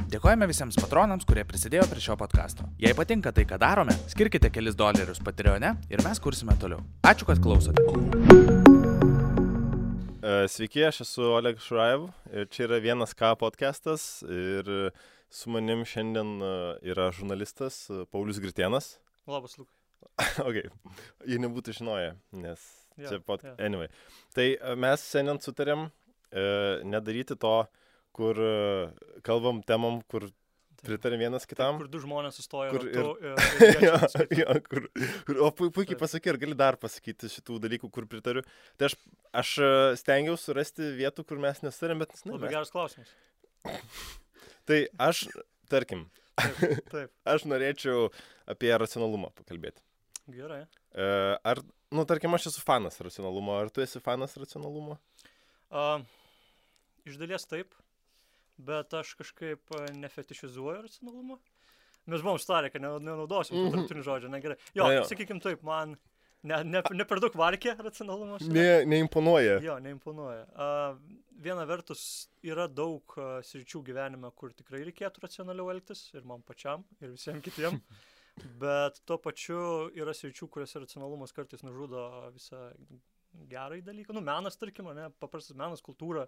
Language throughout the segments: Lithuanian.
Dėkojame visiems patronams, kurie prisidėjo prie šio podcasto. Jei patinka tai, ką darome, skirkite kelis dolerius Patreone ir mes kursime toliau. Ačiū, kad klausote. Sveiki, aš esu Oleg Šurajev ir čia yra Vienas K podcastas ir su manim šiandien yra žurnalistas Paulius Gritėnas. Labas, Lukai. Ok, jie nebūtų žinoję, nes čia Yeah. Anyway. Tai mes šiandien sutarėm nedaryti to, kur kalbam temom, kur pritarėm vienas kitam. Kur du žmonės sustoja Kur ratu o puikiai pasakai, ar gali dar pasakyti šitų dalykų, kur pritariu. Tai aš stengiausi surasti vietų, kur mes nesutarėm, bet Labai geras klausimas. Tai aš, tarkim, Taip. aš norėčiau apie racionalumą pakalbėti. Gerai. Tarkim, aš esu fanas racionalumo. Ar tu esi fanas racionalumo? Iš dalies taip, bet aš kažkaip nefetišizuoju racionalumą. Mes buvom starę, kad nenaudosim tarptautinių žodžių, negerai. Jo, sakykim taip, man ne per daug varkė racionalumas. Neimponuoja. Jo, neimponuoja. Viena vertus yra daug sričių gyvenime, kur tikrai reikėtų racionaliau elgtis, ir man pačiam, ir visiems kitiem. Bet tuo pačiu yra sričių, kuriuose racionalumas kartais nužudo visą gerąjį dalyką. Menas, tarkim, paprastas menas, kultūra,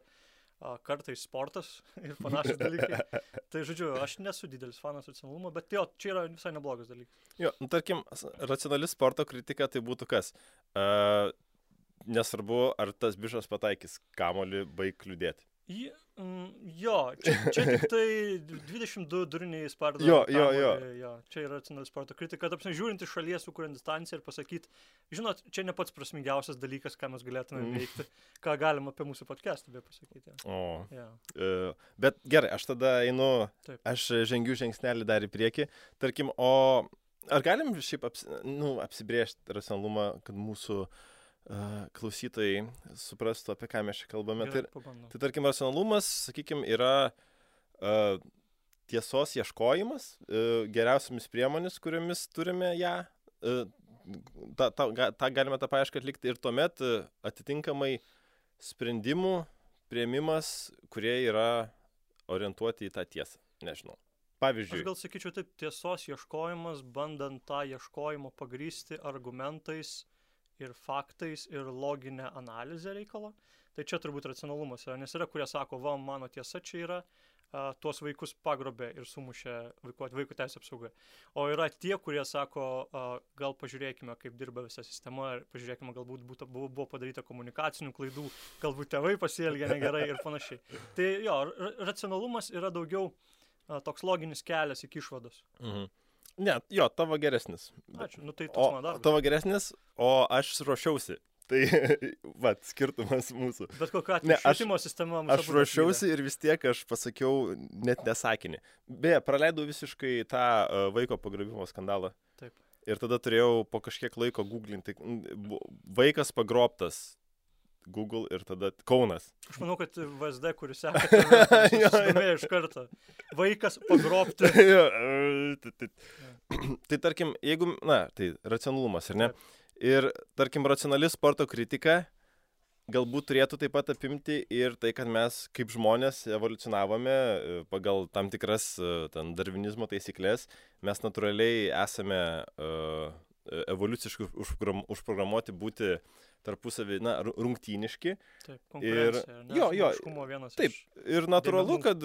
kartais sportas ir panašus dalykai. Tai, žodžiu, aš nesu didelis fanas racionalumo, bet jo, čia yra visai neblogas dalykas. Jo, tarkim, racionali sporto kritika tai būtų kas? Nesvarbu, ar tas bišas pataikys kamuolį, baig kliudėti. Jo, čia tik tai 22 duriniai spardo. Jo. Čia yra racionali sporto kritika. Tapsime, žiūrint iš šalies, sukuriant distanciją ir pasakyti, žinot, čia ne pats prasmingiausias dalykas, ką mes galėtume veikti, ką galim apie mūsų podcastą be pasakyti. Bet gerai, aš tada einu, Taip. aš žengiu žingsnelį dar į priekį. Tarkim, ar galim šiaip apsibrėžti racionalumą, kad mūsų klausytojai suprastų, apie ką mes čia kalbame. Gerai, Tai tarkim, racionalumas, sakykime, yra tiesos ieškojimas, geriausiamis priemonės, kuriomis turime ją. Galime tą paiešką atlikti ir tuomet atitinkamai sprendimų priėmimas, kurie yra orientuoti į tą tiesą. Nežinau. Pavyzdžiui. Aš gal sakyčiau taip, tiesos ieškojimas, bandant tą ieškojimą pagrįsti argumentais ir faktais ir loginę analizę reikalo. Tai čia turbūt racionalumas yra, nes yra, kurie sako, mano tiesa čia yra, tuos vaikus pagrobė ir sumušė vaikų teisės apsauga. O yra tie, kurie sako, gal pažiūrėkime, kaip dirba visa sistema, ir pažiūrėkime, galbūt buvo padaryta komunikacinių klaidų, galbūt tėvai pasielgė negerai ir panašiai. Tai jo, racionalumas yra daugiau toks loginis kelias iki išvados. Mhm. Ne, jo, tavo geresnis. Ačiū, tai toks mano darbas. Tavo geresnis, o aš ruošiausi. Tai, skirtumas mūsų. Bet kokiu atveju švietimo sistema mūsų. Aš ruošiausi ir vis tiek aš pasakiau net nesakinį. Beje, praleidau visiškai tą vaiko pagrobimo skandalą. Taip. Ir tada turėjau po kažkiek laiko googlinti. Vaikas pagrobtas. Google ir tada Kaunas. Aš manau, kad VSD, kuris seka, susidomėjo iš karto. Vaikas pagrobti. Tai tarkim, jeigu, tai racionalumas, ar ne? Ir tarkim, racionali sporto kritika galbūt turėtų taip pat apimti ir tai, kad mes kaip žmonės evoliucionavome pagal tam tikras darvinizmo taisyklės. Mes natūraliai esame evoliuciškai užprogramuoti būti tarpusavį, rungtyniški. Taip, konkurencija. Taip, ir natūralu, kad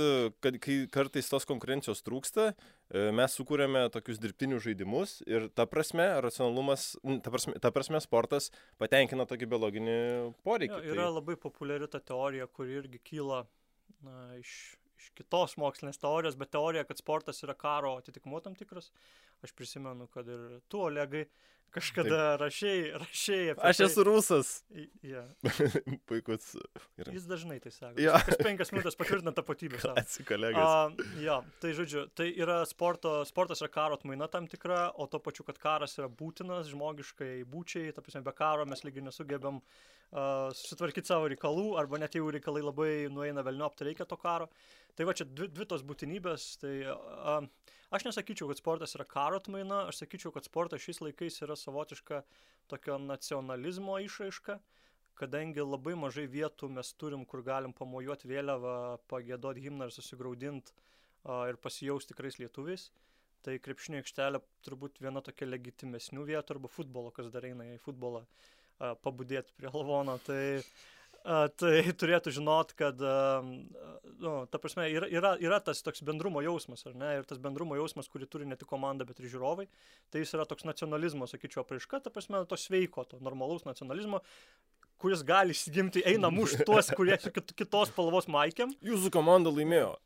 kai kartais tos konkurencijos trūksta, mes sukūrėme tokius dirbtinius žaidimus ir ta prasme, racionalumas, ta prasme sportas patenkina tokį biologinį poreikį. Yra labai populiari ta teorija, kuri irgi kyla iš kitos mokslinės teorijos, bet teorija, kad sportas yra karo atitikmuo tam tikras. Aš prisimenu, kad ir tu, Olegai, kažkada rašei apie Aš esu rusas. Puikus. Jis dažnai tai sako. Ja. Kas 5 minutės patvirtina tapatybę. Atsikolegas. Tai žodžiu, tai yra sportas yra karo atmaina tam tikra, o to pačiu, kad karas yra būtinas žmogiškai būčiai, ta prasme, be karo mes lygiai nesugebėm susitvarkyti savo reikalų, arba net jeigu reikalai labai nueina velniop, tai reikia to karo. Tai va čia dvi tos būtinybės, tai aš nesakyčiau, kad sportas yra karo atmaina, aš sakyčiau, kad sportas šiais laikais yra savotiška tokio nacionalizmo išraiška, kadangi labai mažai vietų mes turim, kur galim pamojuoti vėliavą, pagėdoti himną ir susigraudinti ir pasijaus tikrais lietuviais. Tai krepšinio aikštelė turbūt viena tokia legitimesnių vietų, arba futbolo, kas dar eina į futbolą pabudėti prie lavono. Tai turėtų žinot, kad, ta prasme, yra tas toks bendrumo jausmas, ar ne? Ir tas bendrumo jausmas, kurį turi ne tik komanda, bet ir žiūrovai, tai jis yra toks nacionalizmo, sakyčiau, apraiška, ta prasme, to sveiko, to normalaus nacionalizmo, kuris gali įsigimti, eina mušti tuos, kurie su kitos spalvos maikėm. Jūsų komanda laimėjo.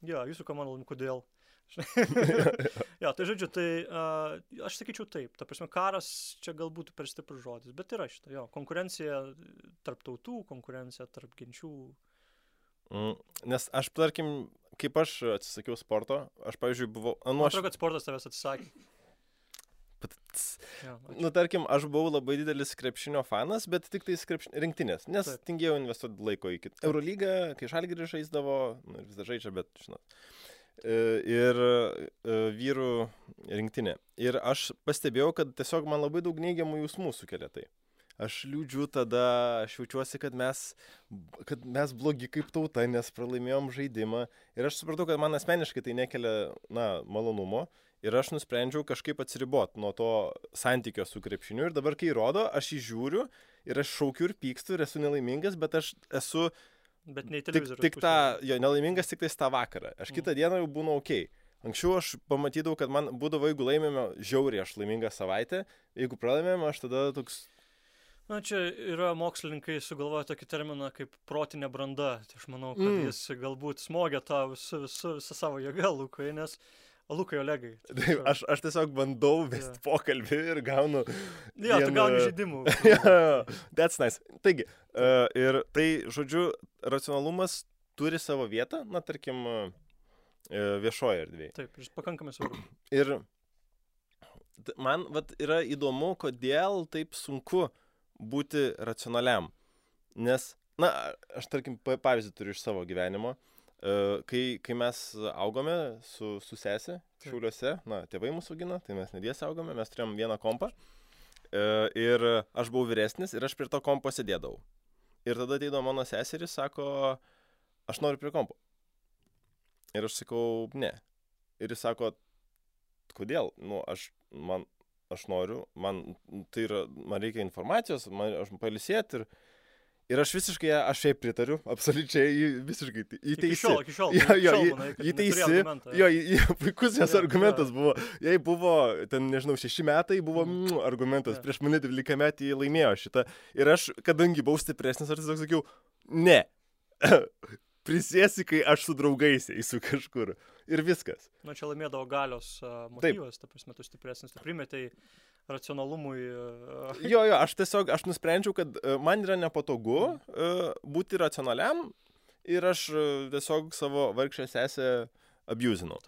Jo, jūsų komanda laimėjo, kodėl? Jo, tai žodžiu, tai aš sakyčiau taip, ta prasme, karas čia galbūt per stiprus žodis, bet yra šitą, jo, konkurencija tarp tautų, konkurencija tarp genčių. Nes aš, tarkim, kaip aš atsisakiau sporto, aš, pavyzdžiui, buvau... Man atrodo, kad sportas tavęs atsisakė. Tarkim, aš buvau labai didelis krepšinio fanas, bet tik tais rinktinės, nes tingėjau investuoti laiko į kitą. Eurolygą, kai Žalgiris žaisdavo, vis dar žaidžia, bet, žinot. Ir vyrų rinktinė. Ir aš pastebėjau, kad tiesiog man labai daug neigiamų jausmų sukelia tai. Aš liūdžiu tada, aš jaučiuosi, kad mes blogi kaip tauta, nes pralaimėjom žaidimą. Ir aš supratau, kad man asmeniškai tai nekelia, malonumo. Ir aš nusprendžiau kažkaip atsiriboti nuo to santykio su krepšiniu. Ir dabar, kai rodo, aš jį žiūriu ir aš šaukiu ir pykstu ir esu nelaimingas, bet aš esu... Bet ne į televizorių. Tik nelaimingas tik tais tą vakarą. Aš kitą dieną jau būnu okei. Anksčiau aš pamatydavau, kad man būdavo, jeigu laimėme žiauriai, aš laiminga savaitę. Jeigu pralaimėme, aš tada toks... Čia yra mokslininkai sugalvoja tokį terminą kaip protinė branda. Tai aš manau, kad jis galbūt smogia tą visą savo jėgą, Lukai, nes... Lukai, Olegai. Aš tiesiog bandau vesti pokalbį ir gaunu... Jo, tu gauni žaidimų. That's nice. Taigi, ir tai, žodžiu, racionalumas turi savo vietą, tarkim, viešoje erdvėje. Taip, ir pakankamai svarbu. Ir man yra įdomu, kodėl taip sunku būti racionaliam. Nes, aš, tarkim, pavyzdį turiu iš savo gyvenimo. Kai mes augome su sesė Šiauliuose, tėvai mūsų augino, tai mes nedėsi augome, mes turėjom vieną kompą ir aš buvau vyresnis ir aš prie to kompo sėdėdavau. Ir tada ateidavo mano seseris, sako, aš noriu prie kompo. Ir aš sakau, ne. Ir jis sako, kodėl? Aš noriu, man reikia informacijos, aš pailsėti ir aš visiškai, aš šiaip pritariu, absoliučiai, visiškai įteisi. Iki šiol. Įteisi. Puikus jos argumentas buvo. Jei buvo, 6 metai, buvo argumentas. Prieš mane 12 metį laimėjo šitą. Ir aš, kadangi buvau stipresnis, aš tiesiog sakiau, ne. Prisėsi, kai aš su draugais eisiu kažkur. Ir viskas. Čia laimėdavo galios motyvas, ta prasme, tu stipresnis, tu primetei racionalumui. Aš nusprendžiau, kad man yra nepatogu būti racionaliam ir aš tiesiog savo vargšę sesę abusinau.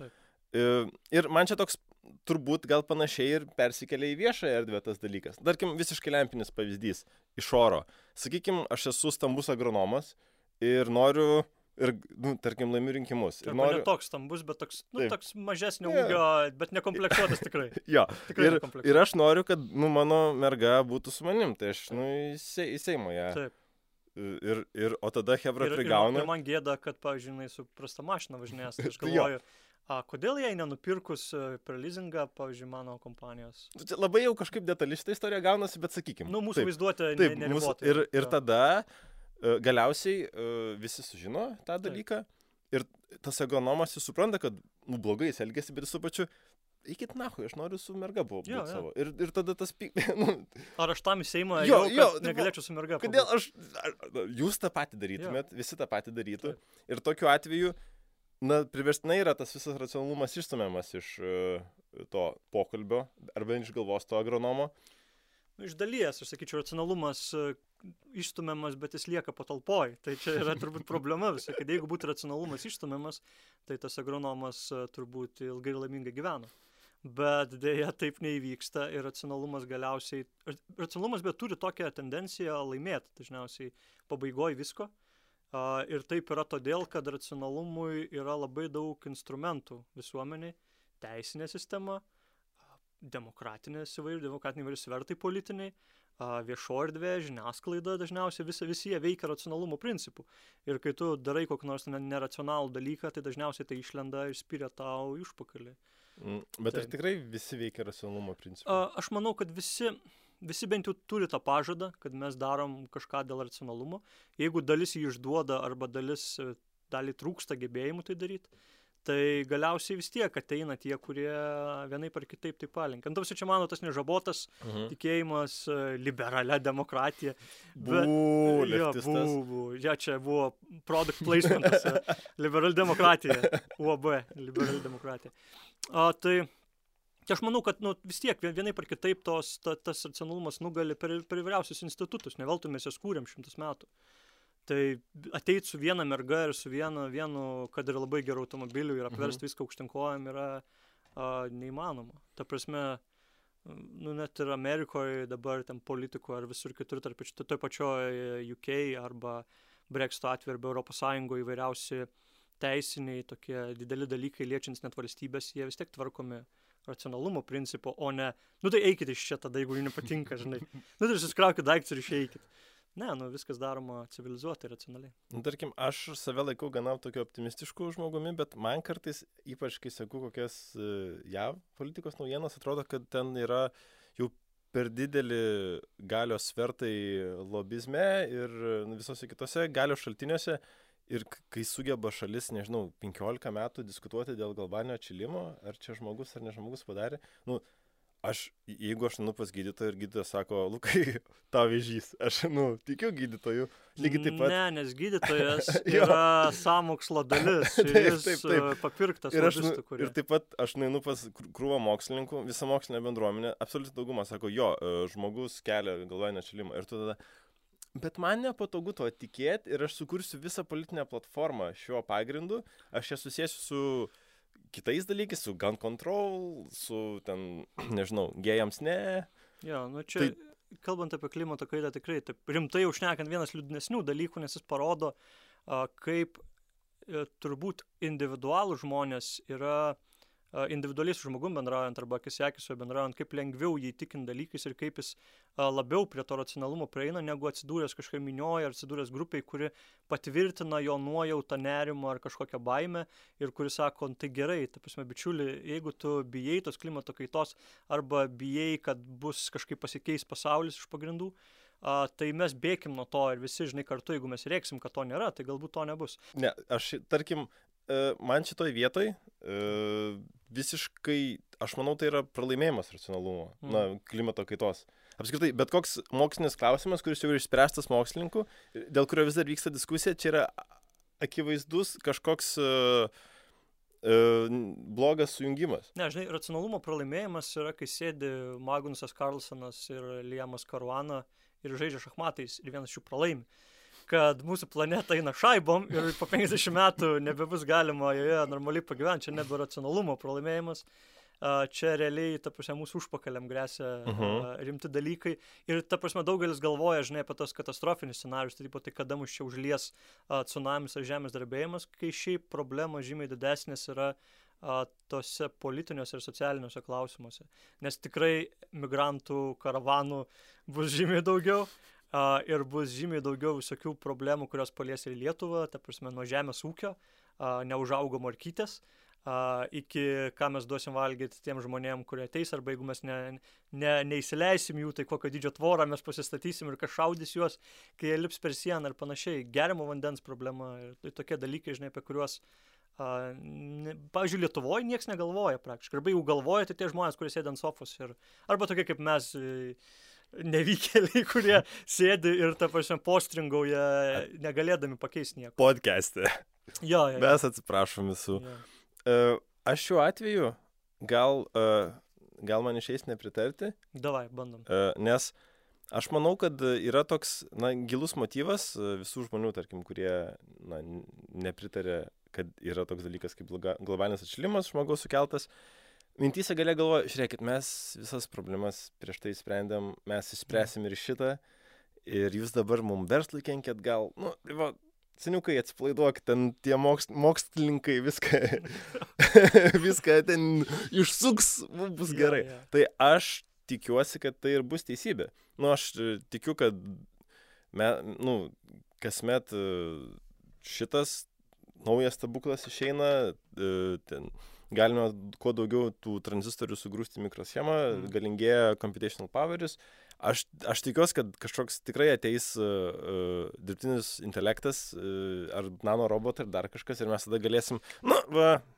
Ir man čia toks turbūt gal panašiai ir persikelia į viešąją erdvę tas dalykas. Tarkim, visiškai lempinis pavyzdys iš oro. Sakykim, aš esu stambus agronomas ir noriu tarkim, laimiu rinkimus. Ne toks stambus, bet toks mažesnio ūgio, bet nekomplektuotas tikrai. Ir aš noriu, kad mano merga būtų su manim, tai aš į Seimą ją. Taip. O tada hebra prigauna. Ir man gėda, kad, pavyzdžiui, su prasta mašina važinės. Aš galvoju, kodėl jai nenupirkus per leasingą, pavyzdžiui, mano kompanijos? Labai jau kažkaip detali šitą istoriją gaunasi, bet sakykim. Mūsų vaizduotė neribota. Ir tada... Galiausiai visi sužino tą dalyką ir tas agronomas jis supranta, kad blogai jis elgėsi, bet su pačiu eikit nahui, aš noriu su merga būti savo. Ir tada tas... Ar aš tam į Seimą negalėčiau su merga? Kodėl jūs tą patį darytumėt, visi tą patį darytų. Ir tokiu atveju, priverstinai yra tas visas racionalumas išstumiamas iš to pokalbio arba iš galvos to agronomo. Iš dalies, aš sakyčiau, racionalumas išstumiamas, bet jis lieka patalpoj. Tai čia yra turbūt problema visai, kad jeigu būtų racionalumas išstumiamas, tai tas agronomas turbūt ilgai ir laimingai gyvena. Bet dėja taip neįvyksta ir racionalumas galiausiai... Racionalumas bet turi tokią tendenciją laimėti dažniausiai pabaigoje visko. Ir taip yra todėl, kad racionalumui yra labai daug instrumentų visuomeniai, teisinė sistema, demokratiniai įvairių svertai politiniai, viešo erdvė, žiniasklaida dažniausiai visi jie veikia racionalumo principų. Ir kai tu darai kokį nors neracionalų dalyką, tai dažniausiai tai išlenda ir spiria tau į užpakalį. Bet ar tikrai visi veikia racionalumo principų? Aš manau, kad visi bent jau turi tą pažadą, kad mes darom kažką dėl racionalumo. Jeigu dalis jį išduoda arba dalį trūksta gebėjimų tai daryti, tai galiausiai vis tiek ateina tie, kurie vienaip ar kitaip tai palinkia. Antausi čia mano tas nežabotas tikėjimas liberalia demokratija. Leftistas. Čia buvo product placementas. Liberal demokratija. UAB. Liberal demokratija. Tai aš manau, kad vis tiek vienaip ar kitaip tas racionalumas nugali per įvairiausius institutus. Ne veltui mes jas kūrėm 100 metų. Tai ateit su viena merga ir su vienu, kad ir labai gerų automobilių ir apversti viską aukštinkojam yra neįmanoma. Ta prasme, net ir Amerikoje dabar ten politikų ar visur kitur, toj pačioje UK arba Brexito atveju arba Europos Sąjungoje įvairiausi teisiniai tokie dideli dalykai liečiantis net valstybės, jie vis tiek tvarkomi racionalumo principo, o ne, tai eikit iš čia tada, jeigu jums nepatinka, žinai. Tai susikraukit daiktus ir išeikit. Ne, viskas daroma civilizuotai, racionaliai. Tarkim, aš save laikau gana tokio optimistiškų žmogumi, bet man kartais, ypač kai sakau kokias JAV politikos naujienas, atrodo, kad ten yra jau per didelį galios svertai lobizme ir visose kitose galios šaltiniuose. Ir kai sugeba šalis, 15 metų diskutuoti dėl globalinio atšilimo, ar čia žmogus ar ne žmogus padarė, jeigu aš pas gydytoją ir gydytojas sako, Lukai, tau vėžys, aš, tikiu gydytoju, lygiai taip pat. Ne, nes gydytojas yra sąmokslo dalis ir jis papirktas lobistų, kurie. Ir taip pat aš nueinu pas krūvą mokslininkų, visą mokslinę bendruomenę, absoliuti dauguma sako, žmogus kelia globalinį atšilimą. Ir tu tada, bet man nepatogu to tikėti ir aš sukursiu visą politinę platformą šiuo pagrindu, aš ją susėsiu su kitais dalykais, su gun control, su ten, gėjams ne. Čia, kalbant apie klimato kaitą, tikrai taip rimtai jau šnekant vienas liūdnesnių dalykų, nes jis parodo, kaip turbūt individualų žmonės yra individualiai su žmogum bendraujant arba akis į akį su juo bendraujant, kaip lengviau jį įtikint dalykais ir kaip jis labiau prie to racionalumo prieina, negu atsidūręs kažkokią minioje ar atsidūręs grupiai, kuri patvirtina jo nuojautą, nerimą ar kažkokią baimę ir kuri sako, tai gerai, ta prasme, bičiuli, jeigu tu bijai tos klimato kaitos arba bijai, kad bus kažkaip pasikeis pasaulis iš pagrindų, tai mes bėkim nuo to ir visi, kartu, jeigu mes rėksim, kad to nėra, tai galbūt to nebus. Ne, aš, tarkim, man šitoj vietoj visiškai, aš manau, tai yra pralaimėjimas racionalumo, klimato kaitos. Apskritai, bet koks mokslinis klausimas, kuris jau yra išspręstas mokslininkų, dėl kurio vis dar vyksta diskusija, čia yra akivaizdus kažkoks blogas sujungimas. Ne, racionalumo pralaimėjimas yra, kai sėdi Magnusas Carlsonas ir Liamas Caruana ir žaidžia šachmatais ir vienas šių pralaimi. Kad mūsų planeta eina šaibom ir po 50 metų nebebus galima joje normaliai pagyventi, čia nebe racionalumo pralaimėjimas, čia realiai, ta prasme, mūsų užpakaliam grėsia rimti dalykai ir, ta prasme, daugelis galvoja, apie tos katastrofinius scenarius, tai kada mus čia užlies tsunamis ar žemės drebėjimas, kai šiaip problema žymiai didesnės yra tose politiniuose ir socialiniuose klausimuose, nes tikrai migrantų karavanų bus žymiai daugiau. Ir bus žymiai daugiau visokių problemų, kurios palies ir Lietuvą, ta prasme, nuo žemės ūkio, neužaugo morkytės, iki ką mes duosim valgyti tiem žmonėm, kurie ateis, arba jeigu mes neįsileisim jų, tai kokio dydžio tvorą mes pasistatysim ir kas šaudys juos, kai jie lips per sieną ir panašiai. Geriamo vandens problema ir tai tokie dalykai, apie kuriuos, pavyzdžiui, Lietuvoje nieks negalvoja praktiškai. Arba jeigu galvoja, tai tie žmonės, kurie sėdi ant sofos. Arba tokie kaip mes, nevykėliai, kurie sėdi ir, ta prasme, postringauja, negalėdami pakeisti nieko. Podcast'e. Jo. Mes atsiprašom visų. Aš šiuo atveju gal man išeis nepritarti. Davai, bandom. Nes aš manau, kad yra toks gilus motyvas visų žmonių, tarkim, kurie nepritarė, kad yra toks dalykas kaip globalinis atšilimas žmogaus sukeltas. Mintyse galia galvoja, žiūrėkit, mes visas problemas prieš tai sprendėm, mes išspręsim ir šitą, ir jūs dabar mums verslui kenkėt gal, seniukai atsipalaiduok, ten tie mokslininkai viską ten išsuks, bus gerai. Tai aš tikiuosi, kad tai ir bus teisybė. Nu, aš tikiu, kad kasmet šitas naujas stebuklas išeina, ten galime kuo daugiau tų tranzistorių sugrūsti mikroschemą, galingėja computational poweris. Aš tikiuosi, kad kažkoks tikrai ateis dirbtinis intelektas ar nanorobotai ar dar kažkas ir mes tada galėsim,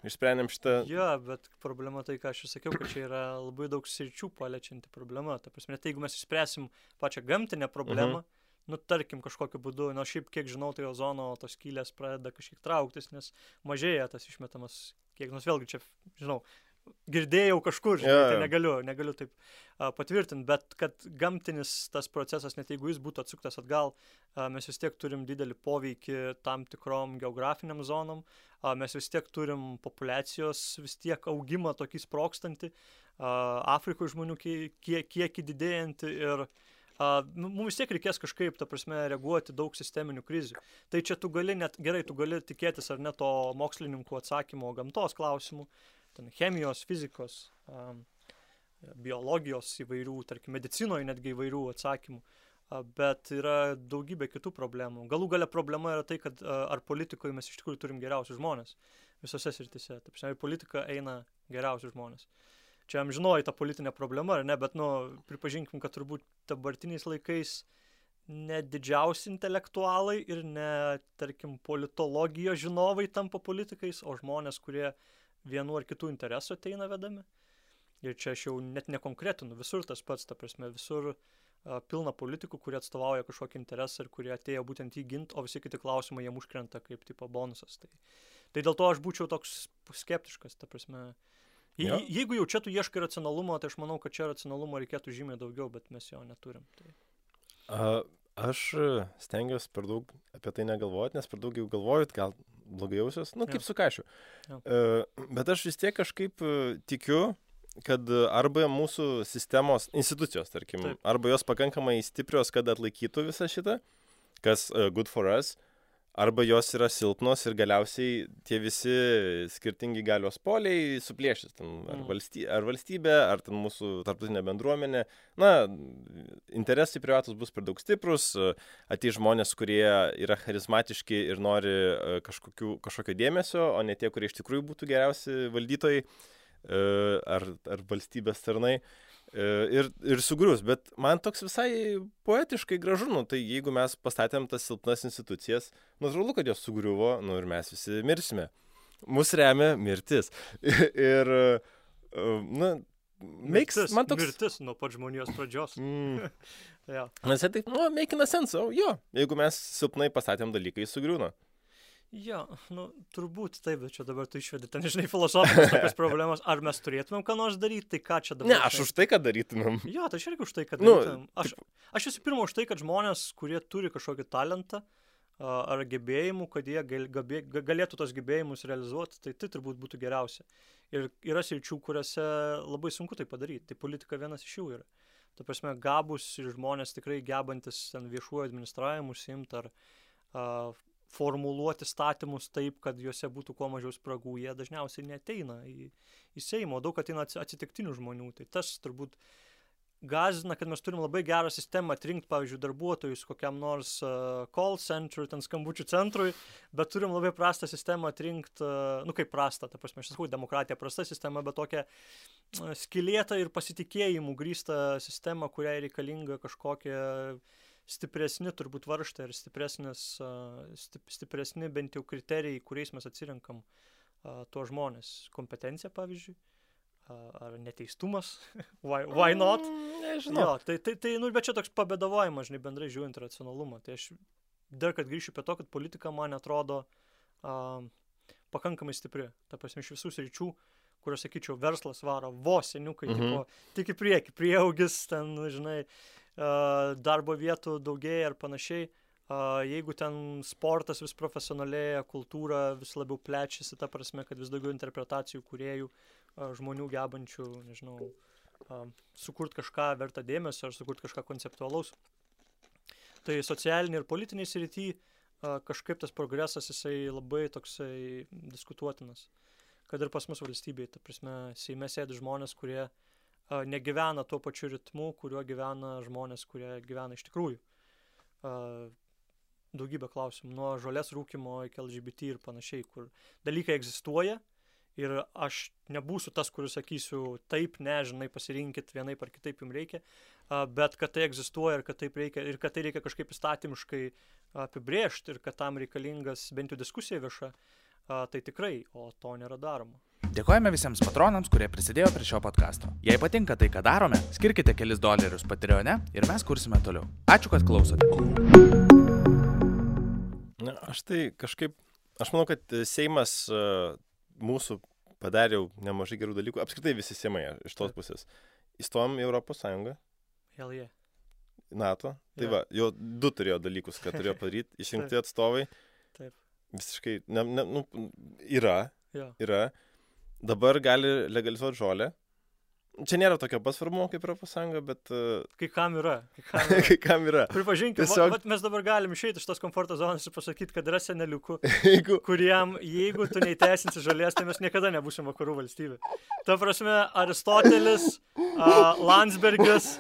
išsprendėm šitą. Ja, bet problema tai, ką aš sakiau, kad čia yra labai daug sričių paliečianti problema. Ta prasme, tai jeigu mes išspręsim pačią gamtinę problemą, tarkim kažkokiu būdu, šiaip kiek žinau, tai ozono tos skylės pradeda kažkiek trauktis, nes mažėja tas išmetamas kiek, vėlgi čia, žinau, girdėjau kažkur, tai negaliu taip patvirtinti, bet kad gamtinis tas procesas, net jeigu jis būtų atsuktas atgal, mes vis tiek turim didelį poveikį tam tikrom geografiniam zonom, mes vis tiek turim populiacijos vis tiek augimą tokį sprogstantį, Afrikoje žmonių kiekį didėjantį ir mums vis tiek reikės kažkaip, ta prasme, reaguoti daug sisteminių krizių. Tai čia tu gali tikėtis ar ne to mokslininkų atsakymo gamtos klausimų, ten chemijos, fizikos, biologijos įvairių, tarkim, medicinoje netgi įvairių atsakymų, bet yra daugybė kitų problemų. Galų gale problema yra tai, kad ar politikoje mes iš tikrųjų turim geriausius žmonės visose srityse. Taip, šiandien politika eina geriausius žmonės. Čia amžinoji ta politinė problema, ar ne, bet, pripažinkim, kad turbūt dabartiniais laikais ne didžiausi intelektualai ir ne, tarkim, politologijos žinovai tampa politikais, o žmonės, kurie vienu ar kitų interesų ateina vedami. Ir čia aš jau net nekonkretinu, visur tas pats, ta prasme, visur pilna politikų, kurie atstovauja kažkokį interesą ir kurie atėjo būtent jį ginti, o visi kiti klausimai jiem užkrenta kaip tipo bonusas. Tai dėl to aš būčiau toks skeptiškas, ta prasme. Jeigu jau čia tu ieškai racionalumo, tai aš manau, kad čia racionalumo reikėtų žymiai daugiau, bet mes jo neturim. Aš stengiuosi per daug apie tai negalvoti, nes per daug jau galvojot, gal blogai jausios, kaip su kašiu. Bet aš vis tiek kažkaip tikiu, kad arba mūsų sistemos institucijos, tarkim, arba jos pakankamai stiprios, kad atlaikytų visą šitą, kas good for us, arba jos yra silpnos ir galiausiai tie visi skirtingi galios poliai suplėšys. Ar valstybė, ar ten mūsų tarptautinė bendruomenė. Interesai privatus bus per daug stiprus, ateis žmonės, kurie yra charizmatiški ir nori kažkokio dėmesio, o ne tie, kurie iš tikrųjų būtų geriausi valdytojai ar valstybės tarnai. Ir sugrius, bet man toks visai poetiškai gražu, tai jeigu mes pastatėm tas silpnas institucijas, natūralu, kad jos sugriuvo, ir mes visi mirsime. Mus remia mirtis. Ir, mirtis nuo pat žmonijos pradžios. Nes tai, making a sense, jeigu mes silpnai pastatėm dalykai, sugriūna. Jo, turbūt taip, bet čia dabar tu išvedi ten, filosofinės tokios problemas. Ar mes turėtumėm ką nors daryti, tai ką čia dabar? Ne, aš už tai, kad darytumėm. Jo, tai aš irgi už tai, kad darytumėm. Aš visų pirma už tai, kad žmonės, kurie turi kažkokį talentą ar gebėjimų, kad jie galėtų tos gebėjimus realizuoti, tai turbūt būtų geriausia. Ir yra sričių, kuriuose labai sunku tai padaryti. Tai politika vienas iš jų yra. Ta prasme, gabus ir žmonės tikrai gebantis ten viešuoju administravimu užsiimti ar formuluoti statymus taip, kad juose būtų kuo mažiau spragų, jie dažniausiai neateina į Seimą, daug ateina atsitiktinių žmonių. Tai tas turbūt gąsdina, kad mes turim labai gerą sistemą atrinkti, pavyzdžiui, darbuotojus kokiam nors call centrui, ten skambučių centrui, bet turim labai prastą sistemą atrinkti, kaip prastą, ta prasme, aš sakau, demokratija prasta sistema, bet tokia skylėta ir pasitikėjimų grįsta sistema, kuriai reikalinga kažkokia stipresni turbūt varžtai ir stipresni bent jau kriterijai, kuriais mes atsirenkam tuos žmonės. Kompetencija, pavyzdžiui, ar neteistumas, why not? Nežinau. Bet čia toks pabėdavojimas, bendrai žiūrint racionalumą. Tai aš dar kad grįšiu prie to, kad politika man atrodo pakankamai stipri. Ta prasme, iš visų sričių, kur aš sakyčiau, verslas varo vos seniukai, tik į priekį, prieaugis, ten, darbo vietų daugėja ir panašiai. Jeigu ten sportas vis profesionalėja, kultūra vis labiau plečiasi, ta prasme, kad vis daugiau interpretacijų kūrėjų, žmonių gebančių, sukurti kažką vertą dėmesio ar sukurti kažką konceptualaus. Tai socialiniai ir politiniai srity kažkaip tas progresas jisai labai toksai diskutuotinas. Kad ir pas mus valstybėje, ta prasme, Seime sėdi žmonės, kurie negyvena tuo pačiu ritmu, kuriuo gyvena žmonės, kurie gyvena iš tikrųjų. Daugybė klausimų, nuo žolės rūkimo iki LGBT ir panašiai, kur dalykai egzistuoja ir aš nebūsiu tas, kuris sakysiu taip, nežinai, pasirinkit vienaip ar kitaip jums reikia, bet kad tai egzistuoja ir kad tai reikia kažkaip įstatymiškai apibrėžti ir kad tam reikalingas bent jau diskusija vieša, tai tikrai, o to nėra daroma. Dėkojame visiems patronams, kurie prisidėjo prie šio podcasto. Jei patinka tai, ką darome, skirkite kelis $, Patreone ir mes kursime toliau. Ačiū, kad klausote. Na, aš manau, kad Seimas mūsų padarė jau nemažai gerų dalykų. Apskritai visi Seimai iš tos pusės. Įstojom į Europos Sąjungą. Hell yeah. NATO. Tai va, jau 2 turėjo dalykus, ką turėjo padaryti. Išrinkti atstovai. Taip. Visiškai, yra. Dabar gali legalizuoti žolę. Čia nėra tokio pasvarbumo kaip Europos Sąjunga, bet... Kai kam yra. Kai kam yra. Pripažinkime, Tiesiog... mes dabar galim išeiti iš tos komforto zonos ir pasakyti, kad yra seneliukų, kuriem, jeigu tu neįteisinsi žolės, tai mes niekada nebūsim vakarų valstybė. Ta prasme, Aristotelis, Landsbergis,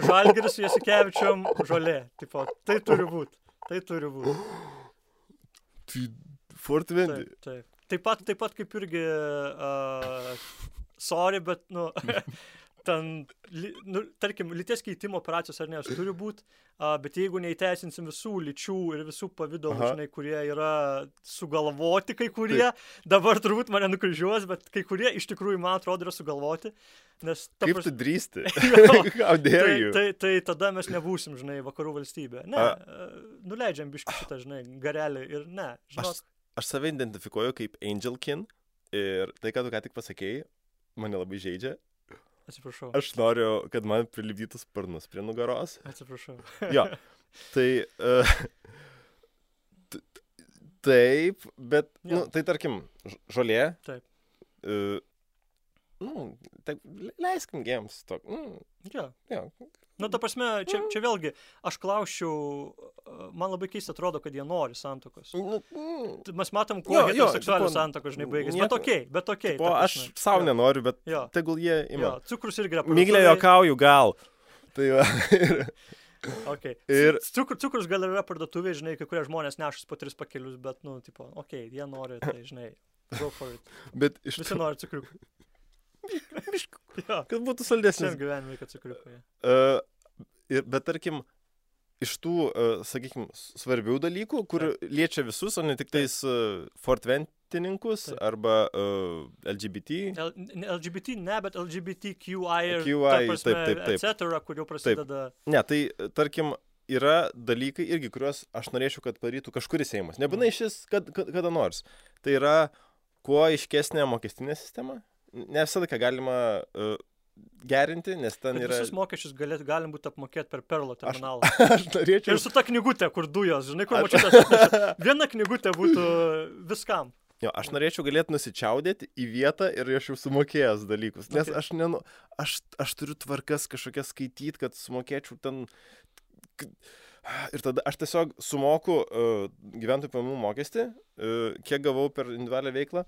Žalgiris su Jasikevičium, žolė. Tipo, tai turi būti. Tai Fortvendi. Taip. Taip pat kaip irgi... Sorry, bet, tarkim, lyties keitimo operacijos ar ne, jos turi būti, bet jeigu neįteisinsim visų lyčių ir visų pavydalų, žinai, kurie yra sugalvoti kai kurie, dabar turbūt mane nukryžiuos, bet kai kurie iš tikrųjų, man atrodo, yra sugalvoti. Nes kaip tu drįsti? Tai tada mes nebūsim, žinai, vakarų valstybė. Ne, nuleidžiam biškį šitą, žinai, garelį ir ne. Aš save identifikuoju kaip Angelkin ir tai, ką tu ką tik pasakėjai, mane labai žaidžia. Atsiprašau. Aš noriu, kad man prilipdytų sparnus prie nugaros. Atsiprašau. Jo, tai... Taip, bet, tai tarkim, žolė. Taip. Tai leiskim gėms. Jo. Ta prasme, čia vėlgi, aš klausčiau, man labai keista atrodo, kad jie nori santuokos. Mes matom, kuo heteroseksualių santuokos, žinai, baigėsi. Bet okei. Aš savo nenoriu, bet tegul jie ima. Cukrus irgi yra Miglė juokauju, gal. Tai va. Okay. Cukrus gal yra parduotuvė, žinai, kai kurie žmonės nešus po 3 pakelius, bet, jie nori, tai, žinai, go for it. Bet visi nori cukriukų. Kad būtų saldesnis. Šiam gyvenimui, kad cukriukai. Bet tarkim, iš tų, sakykime, svarbių dalykų, kur liečia visus, o ne tik tais fortventininkus arba LGBT. LGBT ne, bet LGBTQI etc., kur jau prasideda. Ne, tai tarkim, yra dalykai irgi, kuriuos aš norėčiau, kad padarytų kažkuris Seimas. Nebūtinai šis kada nors. Tai yra kuo aiškesnė mokestinė sistema. Ne visą laiką galima gerinti, nes ten yra... Visus mokesčius galim būti apmokėti per Perlo terminalą. Aš norėčiau... Ir su ta knygutė, kur dujos, žinai, kur mačiutės atneša. Viena knygutė būtų viskam. Jo, aš norėčiau galėti nusičiaudėti į vietą ir aš jau sumokėjęs dalykus. Nes aš turiu tvarkas kažkokias skaityti, kad sumokėčiau ten... Ir tada aš tiesiog sumoku gyventojų pajamų mokestį, kiek gavau per individualią veiklą.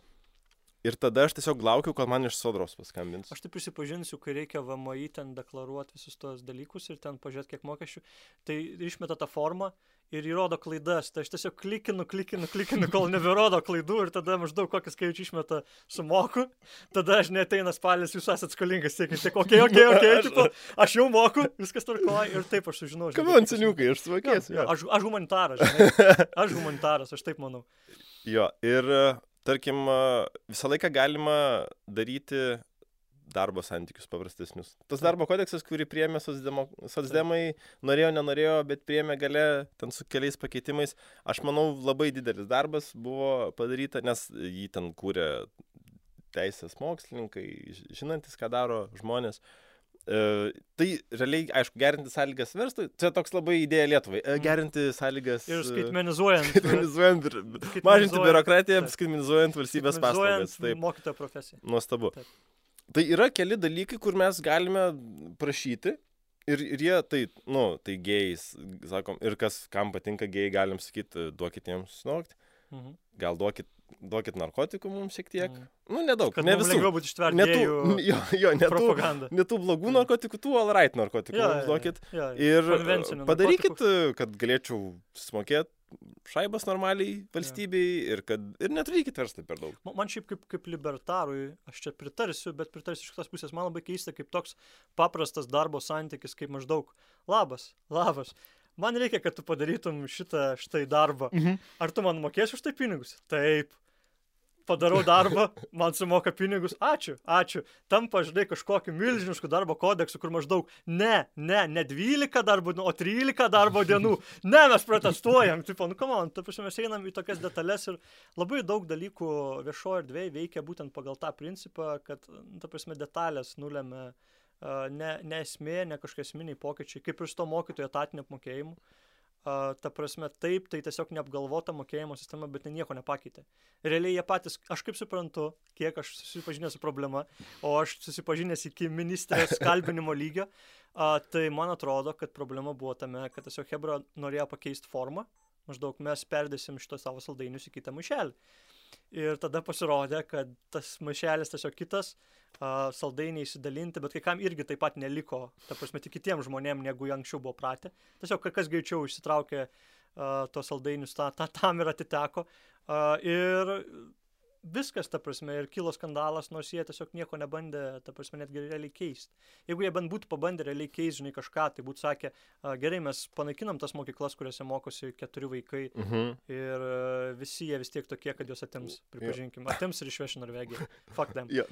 Ir tada aš tiesiog laukiu, kol man iš Sodros paskambins. Aš tai prisipažinsiu, kai reikia VMI ten deklaruoti visus tos dalykus ir ten pažiūrėti, kiek mokesčių, tai išmeta tą formą ir įrodo klaidas. Tai aš tiesiog klikinu, kol neberodo klaidų ir tada maždaug kokį skaičių išmeta sumoku. Tada aš neateina spalis, jūs esat skolingas, tiek, okei, tipo, aš jau moku, viskas tvarkoja ir taip aš sužinau. Kaman, seniukai, aš suvokėsiu. Aš humanitaras, žinai. Aš taip manau. Jo, ir... Tarkim, visą laiką galima daryti darbo santykius paprastesnius. Tas darbo kodeksas, kurį priėmė socdemai, norėjo, nenorėjo, bet priėmė gale ten su keliais pakeitimais. Aš manau, labai didelis darbas buvo padaryta, nes jį ten kūrė teisės mokslininkai, žinantis, ką daro žmonės. Tai realiai, aišku, gerinti sąlygas verslui, čia toks labai idėja Lietuvai, gerinti sąlygas ir skaitmenizuojant mažinti biurokratiją, skaitmenizuojant valstybės paslaugas. Mokytojo profesiją. Nuostabu. Taip. Tai yra keli dalykai, kur mes galime prašyti ir jie tai gėjais, sakom, ir kam patinka gėjai, galim sakyti, duokit jiems snokti, gal duokit duokit narkotikų mums šiek tiek. Nu, nedaug, Kad ne mums visų. lengviau būtų ištverti Ne gėjų propagandą. tų blogų narkotikų, tų all right narkotikų mums duokit. Ir padarykit, kad galėčiau smokėti šaibas normaliai valstybei ir neturėkit verslai per daug. Man šiaip kaip libertarui, aš čia pritarsiu, bet pritarsiu iš kitos pusės. Man labai keista, kaip toks paprastas darbo santykis, kaip maždaug labas. Man reikia, kad tu padarytum štai darbą. Ar tu man mokėsi už tai pinigus? Taip. Padarau darbą, man sumoka pinigus. Ačiū. Tampa, žinai, kažkokiu milžinišku darbo kodeksu, kur maždaug ne 12 darbo dienų, o 13 darbo dienų. Ne, mes protestuojam. Tipo, come on, ta prasme, mes einam į tokias detalės ir labai daug dalykų viešoje erdvėje veikia būtent pagal tą principą, kad, ta prasme, detalės nulemia ne esmė, ne kažkokie esminiai pokyčiai, kaip ir su to mokytojų etatinio apmokėjimu. Ta prasme, taip, tai tiesiog neapgalvota mokėjimo sistema, bet nieko nepakeitė. Realiai jie patys, aš kaip suprantu, kiek aš susipažinęs su problema, o aš susipažinęs iki ministrės kalbinimo lygio, tai man atrodo, kad problema buvo tame, kad tiesiog Hebra norėjo pakeisti formą, maždaug mes perdėsim šito savo saldainius į kitą maišelį. Ir tada pasirodė, kad tas maišelis tiesiog kitas, saldainiai įsidalinti, bet kai kam irgi taip pat neliko, ta prasme, tik kitiems žmonėms, negu anksčiau buvo pratę. Tiesiog kas greičiau išsitraukė tos saldainius, tam ir atiteko. Ir viskas, ta prasme, ir kilo skandalas, nors jie tiesiog nieko nebandė, ta prasme, netgi realiai keisti. Jeigu jie bent būtų pabandę realiai keisti, žinai, kažką, tai būtų sakę, gerai, mes panaikinam tas mokyklas, kuriuose mokosi 4 vaikai ir visi jie vis tiek tokie, kad juos atims, pripažinkim. Atims ir išveš į Norvegiją. Fuck them. Jo,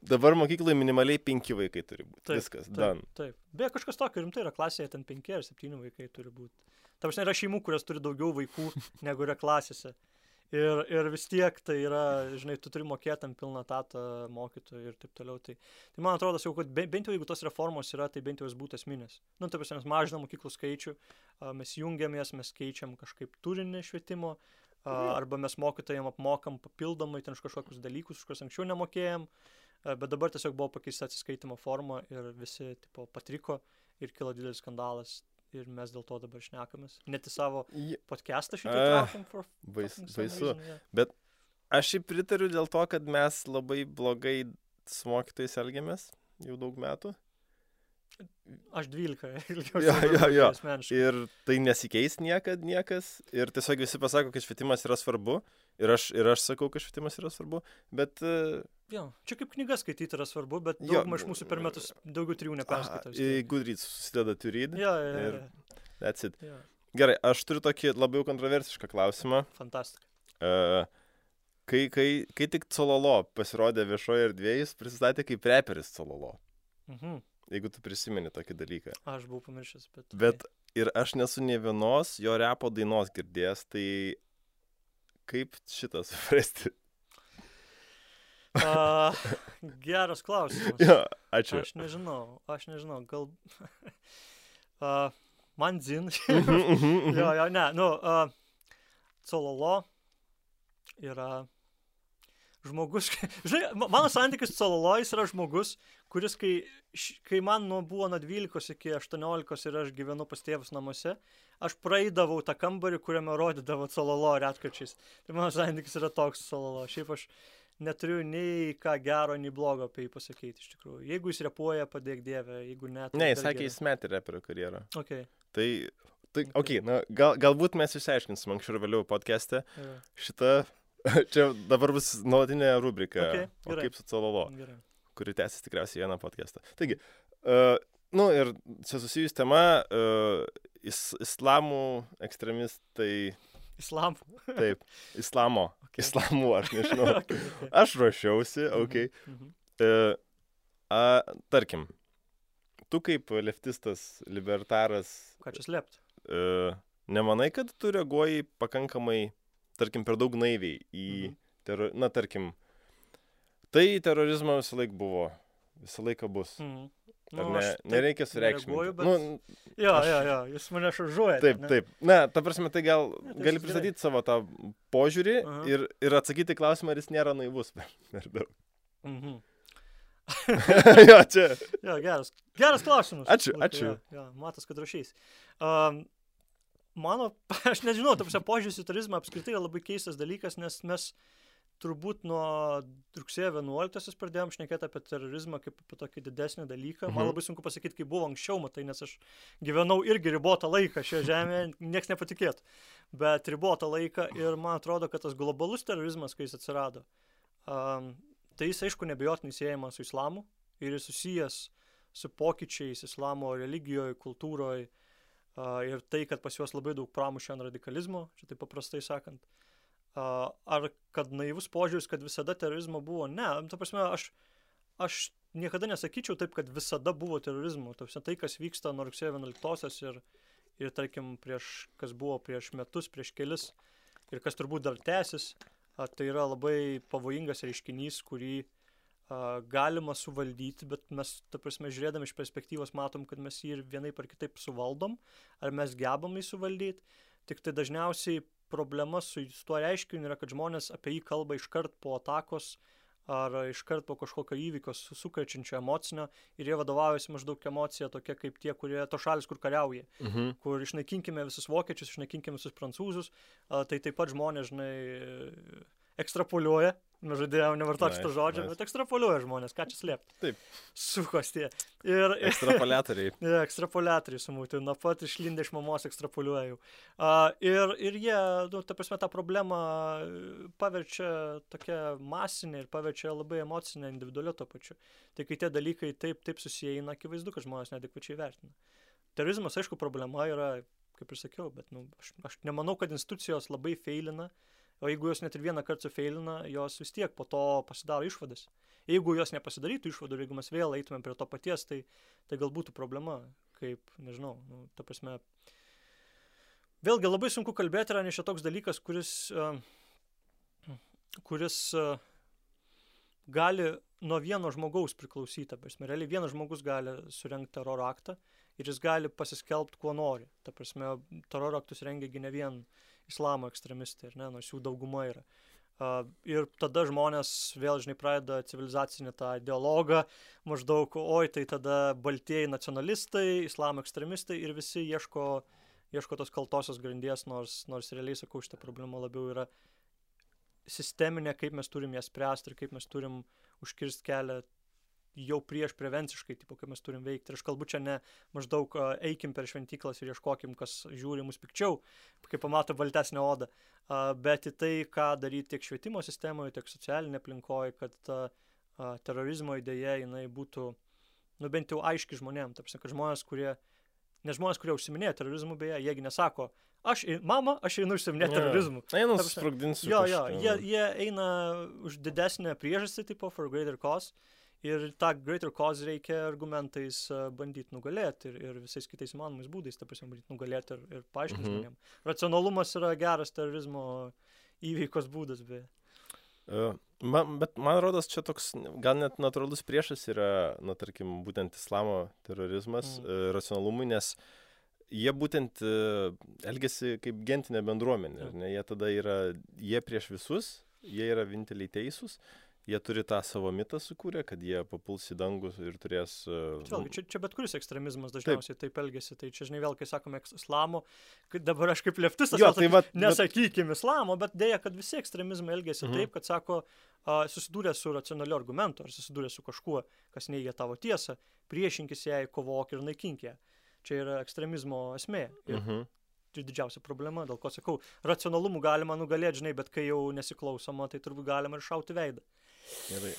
dabar mokykloje minimaliai 5 vaikai turi būti. Taip, viskas, done. Taip. Beje, kažkas tokio rimtai yra klasėje, ten 5 ar 7 vaikai turi būti. Ta prasme, yra šeimų, kurios turi daugiau vaikų, negu yra klasėse. Ir vis tiek tai yra, žinai, tu turi mokėti ant pilną tatą mokytojų ir taip toliau. Tai man atrodo, kad bent jau jeigu tos reformos yra, tai bent jau jis būtų esminės. Nu, taip, mes mažinam mokyklų skaičių, mes jungiamės, mes keičiam kažkaip turinį švietimo, arba mes mokytojams apmokam papildomai ten kažkokius dalykus, kuriuos anksčiau nemokėjom, bet dabar tiesiog buvo pakeista atsiskaitimo forma ir visi tipo, patriko ir kilo didelis skandalas. Ir mes dėl to dabar šnekamės. Net į savo podcastą šitą traukiam. Baisu. Bet aš jį pritariu dėl to, kad mes labai blogai su mokytojais elgiamės jau daug metų. Aš 12. Jo. Ir tai nesikeis niekas. Ir tiesiog visi pasako, kad švietimas yra svarbu. Ir aš sakau, kad švietimas yra svarbu. Bet... Jo, čia kaip knygas skaityti yra svarbu, bet daugumą iš mūsų per metus daugiau 3 neperskaitau. Goodreads susideda to read. Jo. That's it. Jo. Gerai, aš turiu tokį labiau kontroversišką klausimą. Fantastika. Kai tik Cololo pasirodė viešoje erdvėje, jis prisistatė kaip reperis Cololo. Jeigu tu prisimeni tokį dalyką. Aš buvau pamiršęs, bet ir aš nesu nė vienos jo repo dainos girdėjęs, tai kaip šitą suprasti? Geras klausimas. Jo, ačiū. Aš nežinau, gal... man dzin. Cololo yra žmogus... Žinai, mano santykis su Cololo yra žmogus, kuris, kai man buvo nuo 12 iki 18 ir aš gyvenu pas tėvus namuose, aš praeidavau tą kambarį, kuriame rodydavo Cololo retkarčiais. Tai mano santykis yra toks Cololo. Šiaip aš neturiu nei ką gero, nei blogo apie jį pasakyti, iš tikrųjų. Jeigu jis repuoja, padėk Dieve, jeigu ne... Ne, jis sakė, jis metė reperio karjerą. Okay. Tai galbūt mes išsiaiškinsim anksčiau ir vėliau podcast'e. Šitą, čia dabar bus nuolatinė rubrika, o kaip su Cololo, kuri tęsis tikriausiai vieną podcast'ą. Taigi, ir čia susijus tema, islamų ekstremistai... Islamų? Taip, islamo. Okay. Islamų, aš nežinau. Okay. Aš ruošiausi, tarkim, tu kaip leftistas, libertaras... Ką čia slėpti? Nemanai, kad tu reaguoji pakankamai, tarkim, per daug naiviai į... tarkim, tai terorizmo visą laiką bus. Nereikia sureikšminti. Bet... Jo, jūs mane šaržuojate. Taip. Ta prasme, tai gali pristatyti savo tą požiūrį ir atsakyti klausimą, ar jis nėra naivus per daug. Jo, čia. Jo, geras klausimas. Ačiū. Jo, matas, kad rašys. aš nežinau, požiūris į terorizmą apskritai yra labai keistas dalykas, nes mes turbūt nuo rugsėjo 11 pradėjom šnekėti apie terorizmą kaip apie tokį didesnį dalyką. Man labai sunku pasakyti, kaip buvo anksčiau, matai, nes aš gyvenau irgi ribotą laiką šioje žemėje, nieks nepatikėtų. Bet ribotą laiką ir man atrodo, kad tas globalus terorizmas, kai jis atsirado, tai jis aišku nebejotinai siejamas su islamu ir jis susijęs su pokyčiais islamo religijoje, kultūroje ir tai, kad pas juos labai daug pramušė ant radikalizmo, čia taip paprastai sakant. Ar kad naivus požiūris, kad visada terorizmo buvo? Ne, ta prasme, aš niekada nesakyčiau taip, kad visada buvo terorizmo. Tai, kas vyksta nuo rugsėjo 11-osios ir tarkim, kas buvo prieš metus, prieš kelis, ir kas turbūt dar tęsis, tai yra labai pavojingas reiškinys, kurį galima suvaldyti, bet mes, ta prasme, žiūrėdami iš perspektyvos matom, kad mes jį ir vienaip ar kitaip suvaldom, ar mes gebam jį suvaldyti. Tik tai dažniausiai problema su tuo reiškiniu yra, kad žmonės apie jį kalba iškart po atakos ar iškart po kažkokio įvykio sukrečiančio emocinio ir jie vadovaujasi maždaug emocija tokia kaip tie, to šalis, kur kariauja, kur išnaikinkime visus vokiečius, išnaikinkime visus prancūzus, tai taip pat žmonės, žinai, ekstrapoliuoja, žadėjau nevartoti šito žodžio, bet ekstrapoliuoja žmonės, ką čia slėpti. Taip. Sukos tie. Ekstrapoliatoriai. Ekstrapoliatoriai sumūti, nuo pat išlindę iš mamos ekstrapoliuoja jau. Ir jie, ta prasme, tą problemą paverčia tokia masinė ir paverčia labai emocinė, individualiu to pačiu. Tai kai tie dalykai taip susieina, akivaizdu, kad žmonės neadekvačiai vertina. Terorizmas, aišku, problema yra, kaip ir sakiau, bet aš nemanau, kad institucijos labai feilina. O jeigu jos net ir vieną kartą sufeilina, jos vis tiek po to pasidaro išvadas. Jeigu jos nepasidarytų išvadų ir jeigu mes vėl eitumėm prie to paties, tai gal būtų problema, kaip, nežinau, ta prasme. Vėlgi labai sunku kalbėti, yra nes čia toks dalykas, kuris gali nuo vieno žmogaus priklausyti. Ta prasme, realiai vienas žmogus gali surengti teroro aktą ir jis gali pasiskelbti, kuo nori. Ta prasme, teroro aktus rengiagi ne vien islamo ekstremistai, nors jų dauguma yra. Ir tada žmonės vėl, žinai, pradeda civilizacinį tą dialogą, maždaug, tai tada baltieji nacionalistai, islamo ekstremistai ir visi ieško tos kaltosios grandies, nors realiai, sakau, šitą problemą labiau yra sisteminė, kaip mes turim ją spręsti ir kaip mes turim užkirsti kelią jau prieš prevenciškai, kaip mes turim veikti. Ir aš kalbu čia ne maždaug eikim per šventyklas ir ieškokim, kas žiūri mus pikčiau, kai pamato baltesnę odą, bet į tai, ką daryti tiek švietimo sistemoje, tiek socialinė aplinkoje, kad ta terorizmo idėja, jinai būtų, bent jau aiški žmonėm. Tarsi, kad žmonės, kurie užsiminėja terorizmu, beje, jiegi nesako, aš einu užsiminėti terorizmu. Einu susprogdinsiu. Jie eina už didesnę priežastį, tipo for greater cause. Ir tą greater cause reikia argumentais bandyti nugalėti ir visais kitais įmanomais būdais, bandyti nugalėti ir paaiškinti žmonėm. Racionalumas yra geras terorizmo įveikos būdas, beje. Bet man rodos, čia toks gal net natūralus priešas yra, tarkim, būtent islamo terorizmas racionalumui, nes jie būtent elgiasi kaip gentinė bendruomenė. Jie tada jie prieš visus, jie yra vieninteliai teisūs. Jie turi tą savo mitą sukūrę, kad jie papuls į dangus ir turės... Čia bet kuris ekstremizmas dažniausiai taip elgesi. Tai čia, žinai, vėl, kai sakome islamo, dabar aš kaip leftistas, nesakykim islamo, bet dėja, kad visi ekstremizmai elgesi taip, kad sako, susidūrė su racionaliu argumentu, ar susidūrė su kažkuo, kas neigia tavo tiesą, priešinkis jai, kovok ir naikink ją. Čia yra ekstremizmo esmė. Tai didžiausia problema, dėl ko sakau, racionalumu galima nugalėti, žinai, bet kai jau nesiklausoma, tai turbūt galima ir šauti veidą. Gerai.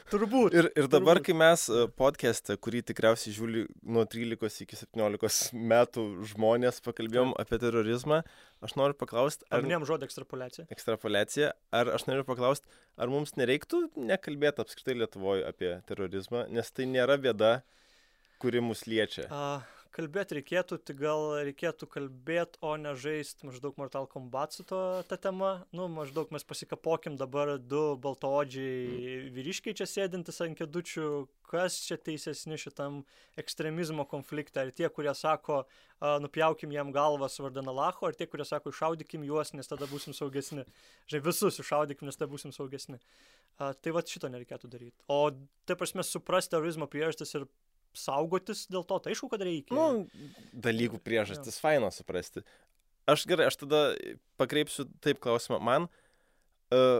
Turbūt. Ir dabar, kai mes podcast'e, kurį tikriausiai žiūri nuo 13 iki 17 metų žmonės pakalbėjom apie terorizmą, aš noriu paklausti... Paminėjom žodį ekstrapoliacija. Ekstrapoliacija. Aš noriu paklausti, ar mums nereiktų nekalbėti apskritai Lietuvoje apie terorizmą, nes tai nėra bėda, kuri mus liečia. Kalbėti reikėtų, tai gal reikėtų kalbėti, o ne žaisti maždaug Mortal Kombat su ta tema. Maždaug mes pasikapokim dabar du baltaodžiai vyriškiai čia sėdintis ant kėdučių, kas čia teisesni šitam ekstremizmo konflikte. Ar tie, kurie sako, nupjaukim jam galvas vardan Alacho, ar tie, kurie sako, iššaudykim juos, nes tada būsim saugesni. Žinai, visus iššaudykim, nes tada būsim saugesni. Tai šito nereikėtų daryti. O tai prasme suprasti terorizmo priežastis ir saugotis dėl to, tai aišku, kad reikia. Dalykų priežastis faina suprasti. aš tada pakreipsiu taip klausimą. Man,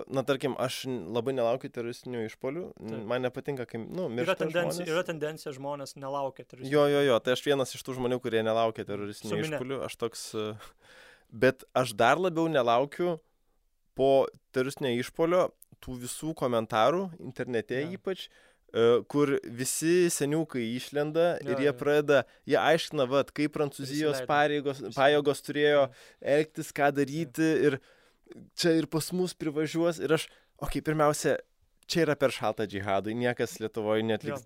na tarkim, aš labai nelaukiu teroristinių išpolių. Man nepatinka, kai, miršta žmonės. Yra tendencija, žmonės nelaukia teroristinių. Jo, tai aš vienas iš tų žmonių, kurie nelaukia teroristinių išpolių. Aš toks, bet aš dar labiau nelaukiu po teroristinio išpolio tų visų komentarų internete ypač, kur visi seniukai išlenda ir jie aiškina, kaip Prancūzijos pajėgos turėjo elgtis, ką daryti ir čia ir pas mus privažiuos ir aš, pirmiausia, čia yra per šaltą džihadui, niekas Lietuvoje neatliks.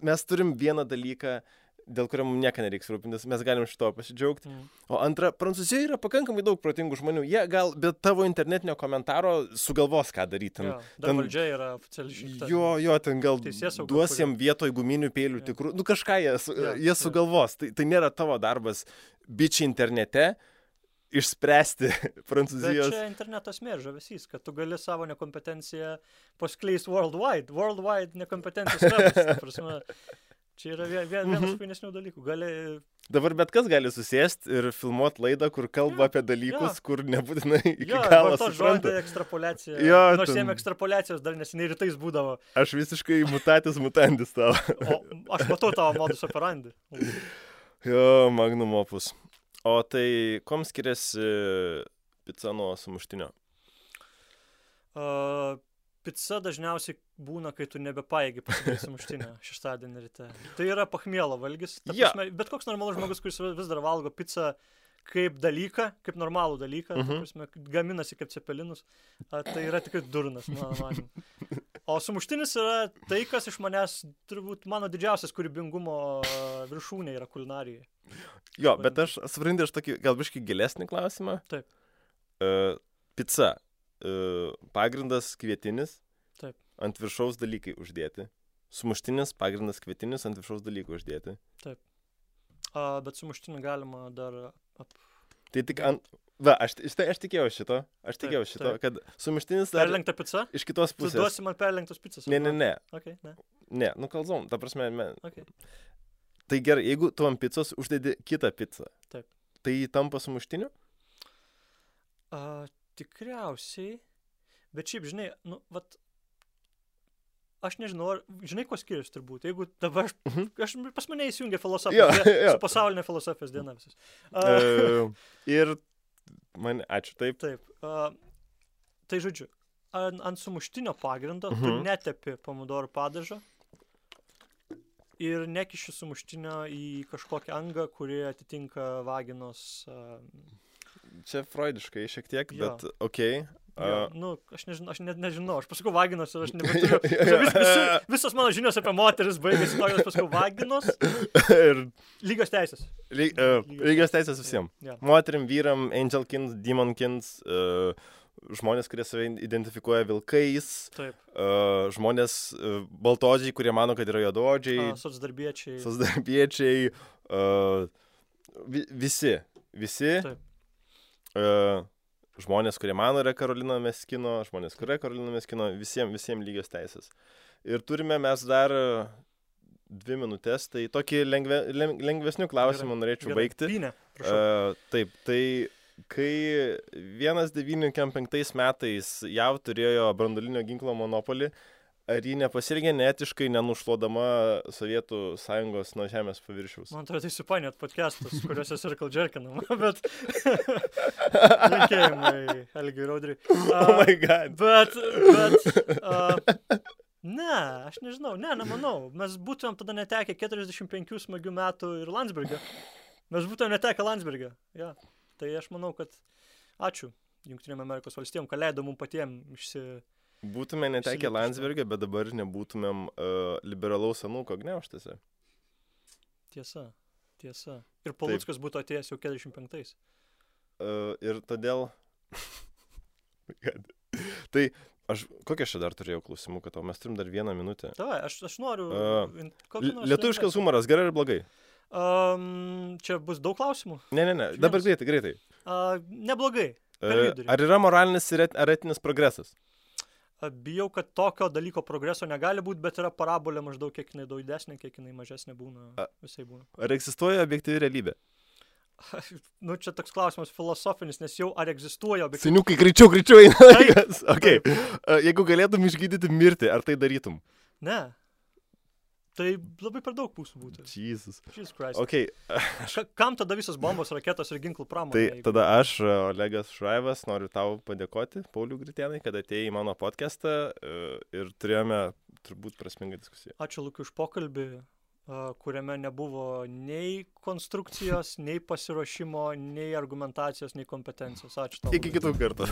Mes turim vieną dalyką, dėl kurio mums nieko nereiks rūpintis, mes galim šito pasidžiaugti. O antra, Prancūzijoje yra pakankamai daug protingų žmonių, jie gal be tavo internetinio komentaro sugalvos, ką daryti. Dar valdžia yra oficialiai išrinkta. Jo, ten gal duos jiem vietoj guminių peilių tikrų, kažką jie sugalvos. Tai nėra tavo darbas bičiai internete išspręsti Prancūzijos. Bet čia internetas žavesys, kad tu gali savo nekompetenciją paskleis worldwide nekompetencijos levels, ta prasme. Čia yra vienas fainesnių dalykų. Dabar bet kas gali susėsti ir filmuoti laidą, kur kalba apie dalykus, kur nebūtinai iki galo supranta. Žodį ekstrapoliacija. Nors jiem ekstrapoliacijos dar neseniai rytais būdavo. Aš visiškai mutatis mutandis tavo. Aš matau tavo modus operandi. Jo, magnum opus. O tai kom skiriasi pica nuo sumuštinio? Pica dažniausiai būna, kai tu nebepaėgi pasidaryti sumuštinę šeštadienį ryte. Tai yra pachmielo valgis. Bet koks normalus žmogus, kuris vis dar valgo pizzą kaip dalyką, kaip normalų dalyką, gaminasi kaip cepelinus, tai yra tikrai durnas, mano manimu. O sumuštinis yra tai, kas iš manęs, turbūt mano didžiausias kūrybingumo viršūnė yra kulinarijai. Jo, bet aš suprantu, tokį gal biškį gilesnį klausimą. Taip. Pica. Pagrindas kvietinis, taip. Ant viršaus dalykai uždėti. Sumuštinis, pagrindas kvietinis, ant viršaus dalykai uždėti. Taip. Bet sumuštinį galima dar... Tai tik ant... aš tikėjau šito, kad sumuštinis... Perlenkta pica? Iš kitos pusės. Tu duosi man perlenktos picas? Ne. Okay, ne. Ne, kalzom, ta prasme... Okay. Tai gerai, jeigu tu ant picos uždedi kitą pizzą, taip. Tai tampa sumuštiniu? Tikriausiai, bet šiaip, žinai, aš nežinau, žinai, ko skiriasi turbūt, jeigu dabar, pas mane įsijungia filosofija, su pasaulinė filosofijos diena visas. Ir ačiū, taip. Taip, tai žodžiu, ant sumuštinio pagrindo tu netepi pomidorų padažo ir nekiši sumuštinio į kažkokią angą, kuri atitinka vaginos... Čia freudiškai šiek tiek, bet okei. Aš nežinau, aš pasakau vaginos ir aš nebeturiu. Visos mano žinios apie moteris baigėsi to, aš pasakau vaginos ir lygios teisės. Lygios teisės visiems. Moterim, vyram, angelkins, demonkins, žmonės, kurie save identifikuoja vilkais, žmonės baltodžiai, kurie mano, kad yra juodaodžiai, socdarbiečiai, visi. Žmonės, kurie mano yra Karolina Meskino, žmonės, kurie Karolina Meskino, visiems lygios teisės. Ir turime mes dar 2 minutės, tai tokį lengvesnių klausimų norėčiau baigti. Taip, tai kai 1995 metais JAV turėjo branduolinio ginklo monopolį, ar ji nepasirgė neetiškai, nenušluodama Sovietų Sąjungos nuo žemės paviršiaus? Man atrodo, tai supainiot podcastus, kuriuose circle jerkinama, bet linkėjimai Algiui Raudriui. Oh my god. Bet ne, aš nežinau, nemanau. Mes būtumėm tada netekę 45 smagių metų ir Landsbergio. Mes būtumėm netekę Landsbergio. Ja. Tai aš manau, kad ačiū Jungtinėm Amerikos valstijom, kad leido mums patiems Būtume netekę Landsbergio, bet dabar nebūtumėm liberalaus anūko gniauštėse. Tiesa. Ir Paluckas būtų atėjęs jau 45. Ir todėl... Tai kokią aš dar turėjau klausimų, kad mes turim dar 1 minutę. Davai, aš noriu... Lietuviškas humoras, gerai ir blogai? Čia bus daug klausimų? Ne, dabar greitai. Neblogai. Ar yra moralinis ar etinis progresas? Bijau, kad tokio dalyko progreso negali būti, bet yra parabolė maždaug kiek jinai daug didesnė, kiek jinai mažesnė būna, visai būna. Ar egzistuoja objektyvi realybė? Nu, čia toks klausimas filosofinis, nes jau ar egzistuoja objektyvus. Seniukai, greičiau eina Taip. laikas. Okay. Jeigu galėtum išgydyti mirtį, ar tai darytum? Ne. Tai labai per daug pusų būtų. Jesus. Jesus Christ. Okay. Kam tada visos bombos, raketos ir ginklų pramonė? Tai jeigu- tada aš, Olegas Šraivas, noriu tau padėkoti, Paulių Gritėnai, kad atėjai į mano podcastą ir turėjome turbūt prasmingą diskusiją. Ačiū Lukiu už pokalbį, kuriame nebuvo nei konstrukcijos, nei pasiruošimo, nei argumentacijos, nei kompetencijos. Ačiū tau. Iki kitų kartų.